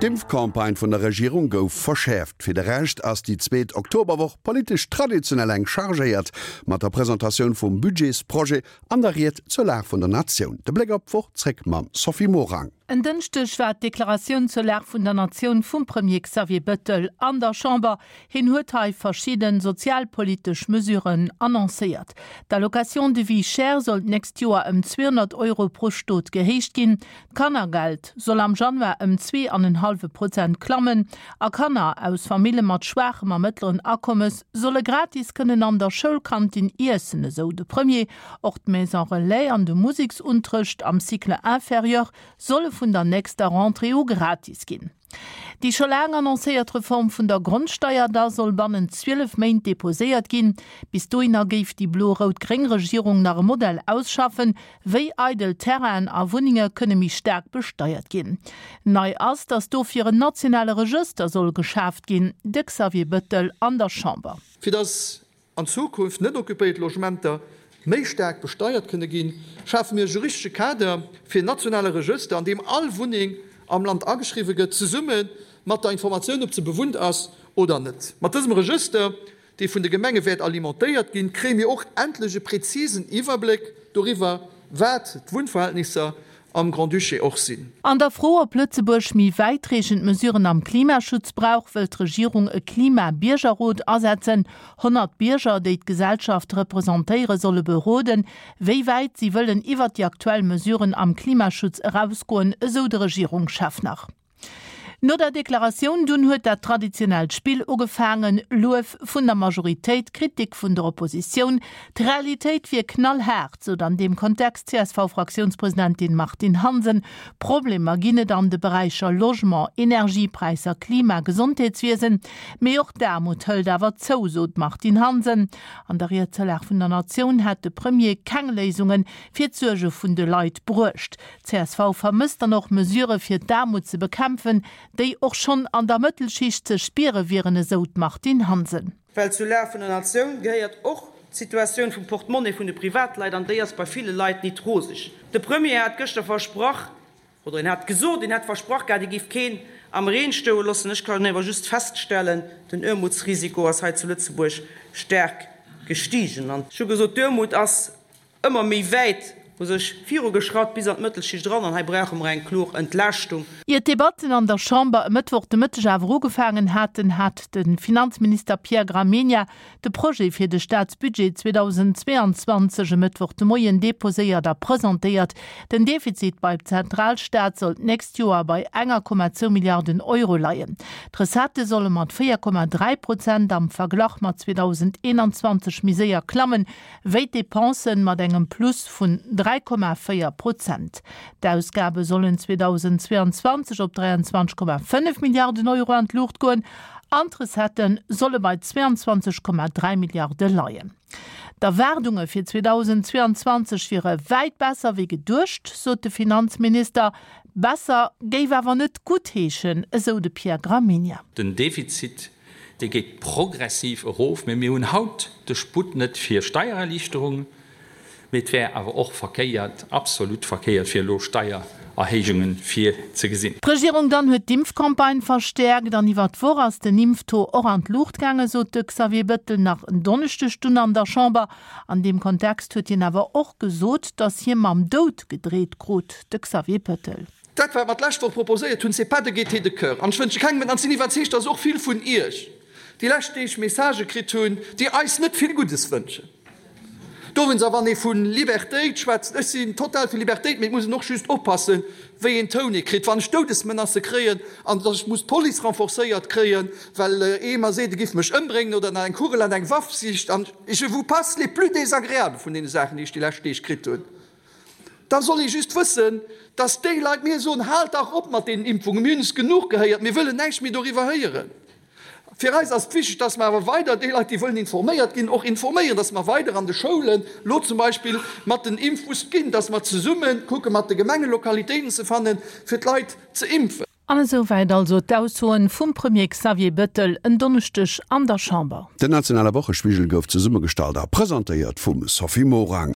D'Impfcampagne vun der Regierung gouf verschäerft. Fir de Rescht ass déi zweet Oktoberwoch politesch traditionell enk chargéiert, mat der Presentatioun vum Budgetsprojet an der Ried zur Lag vun der Natioun. De Bléck op d'Woch zréck mam Sophie Morang. En Dënschdeg war d'Deklaratioun zur Lag vun der Natioun vum Premier Xavier Bettel an der Chamber. Hien huet hei verschidde sozialpolitesch Mesuren annoncéiert. D'Allocation de vie chère soll d'nächst Joer ëm 200 Euro pro Stot gehéicht ginn. D'Kannergeld soll am Januar ëm zwee an en hallwe Prozent klammen a Kanner aus Famille mat schwaachem a mëttleren Akommes solle gratis kënnen an der Schoulkantin iessen, esou de Premier. Och d'Maison Relais an de Museksunterrecht am Cycle inférieur solle vun der nächster Rentrée u gratis ginn. Déi scho laang annoncéiert Reform vun der Grondsteier da soll bannent 12 Méint deposéiert ginn. Bis dohinner géif déi blo-rout-gréng Regierung nach e Modell ausschaffen, wéi eidel Terrainen a Wunnenge kënne méi staark besteiert ginn. Nei ass, datt dofir en nationale Regëster soll geschaaft ginn. De Xavier Bettel an der Chamber. Fir datt an Zukunft net occupéiert Logementer méi staark besteiert kënne ginn, schafe mir e juristesche Kader fir en nationale Regëster, an deem all Wunneng am Land ageschriwwe gëtt, zesumme mat der Informatioun, ob se bewunnt ass oder net. Mat dësem Regëster, dee vun de Gemenge wäert alimentéiert ginn, kréie mir och endlech e prezisen Iwwerbléck doriwwer, wat d'Wunnverhältnisser am Grand-Duché och sinn. An der Fro, ob Lëtzebuerg méi wäitreechend Mesuren am Klimaschutz brauch, wëllt d'Regierung e Klima-Biergerrot asetzen. 100 Bierger, déi d'Gesellschaft representéieren, solle beroden, wéi wäit si wëllen iwwert déi aktuell Mesuren am Klimaschutz erausgoen, esou de Regierungschef nach. No der Deklaratioun dunn huet dat traditionellt Spill ugefaangen, Luef vun der Majoritéit, Kritik vun der Oppositioun. D'Realitéit wier knallhaart, sot an deem Kontext d'CSV-Fraktiounspresidentin Martine Hansen. Problemer ginn et an de Beräicher Logement, Energiepräisser, Klima, Gesondheetswiesen. Mee och d'Aarmut hëlt awer zou, sot d'Martine Hansen. An der Ried zur Lag vun der Natioun hätt de Premier keng Léisunge fir d'Suerge vun de Leit bruecht. Csv vermësst dann och Mesurë fir d'Aarmut ze bekämpfen, déi och schonn an der Mëttelschicht ze spiere wieren, esou d'Martine Hansen. Well zur Lag vun der Natioun gehéiert och d'Situatioun vum Portemonnaie vun de Privatleit, an déi ass bei ville Leit nit roseg. De Premier hat gëschter versprach, oder en hat gesot, en hätt versprach gehat, e géif keen am Reen stoe loossen. Ech kann awer just feststellen, den Aarmutsrisiko ass hei zu Lëtzebuerg staark gestigen. An ech hu gesot, d'Aarmut ass ëmmer méi wäit u sech virugeschratt, bis an d'Mëttelschicht eran, an hei brauche mer eng kloer Entlaaschtung. Ier d'Debatten an der Chamber e Mëttwoch de Mëtteg awer ugefaangen haten, hat de Finanzminister Pierre Gramegna de Projet fir de Staatsbudget 2022 e Mëttwoch de Moien deposéiert a presentéiert. Den Defizit beim Zentralstaat soll d'nächst Joer bei 1,2 Milliarden Euro leien. D'Recettë solle mat 4,3 Prozent am Verglach mat 2021 méi séier klammen, wéi d'Depensen mat engem Plus vun 3,4 Prozent. D'Ausgabe sollen 2022 op 23,5 Milliarden Euro an d'Luucht goen an d'Recettë solle bei 22,3 Milliarde leien. D'Erwaardunge fir 2022 wiere wäit besser wéi geduecht, sot de Finanzminister. Besser géif awer net gutt heeschen, esou de Pierre Gramegna. Den Defizit Dee geet progressiv erof, mä mir hunn haut de Sputt net fir Steiererliichterungen, mee et wär awer och verkéiert, absolut verkéiert, fir elo Steiererhéijunge virzegesinn. D'Regierung dann huet d'Impfcampagne verstäerkt an iwwer d'Woch ass den Impftaux och an d'Luucht gaangen, sot de Xavier Bettel nach en Donneschdeg dunn an der Chamber. An deem Kontext huet hien awer och gesot, datt hie mam Doud gedreet krut. De Xavier Bettel. Dat, wat mer d'lescht Woch proposéiert hunn, c'est pas de gaieté de cœur. An ech wënsche kengem et. An ech sinn iwwerzeegt, dass och vill vun Iech déi lescht Deeg Messagë kritt hunn, déi eis net vill Guddes wënschen. Dowéinst, a wann ee vu Libertéit schwätzt, ech sinn total fir Libertéit, mee et muss een och just oppassen, wéi een Toun ee kritt. Wann ech Doudesmenacë kréien an dass ech muss d'Police renforcéiert kréien, well ee mer seet, e giff mech ëmbréngen oder nach eng Kugel an eng Waff sicht, an je vous passe les plus désagréables vun deene Saachen, déi ech déi lescht Deeg kritt hunn, Da soll ee just wëssen, dass déi Leit mir soen, Haalt dach op mat deenen Impfungen, mir hunn es genuch gehéiert, mir wëllen näischt méi doriwwer héieren. Fir eis ass et wichteg, dass mer awer weider déi Leit, déi wëllen informéiert ginn, och informéieren, dass mer weider an de Schoulen elo zum Beispill mat den Impfbusse ginn, dass mer zesumme kucke mat de Gemengen, Lokalitéiten ze fannen, fir d'Leit ze impfen. An esou wäit also d'Aussoen vum Premier Xavier Bettel en Donneschdeg an der Chamber. Den nationale Wochespigel gouf zesummegestallt a presentéiert vum Sophie Morang.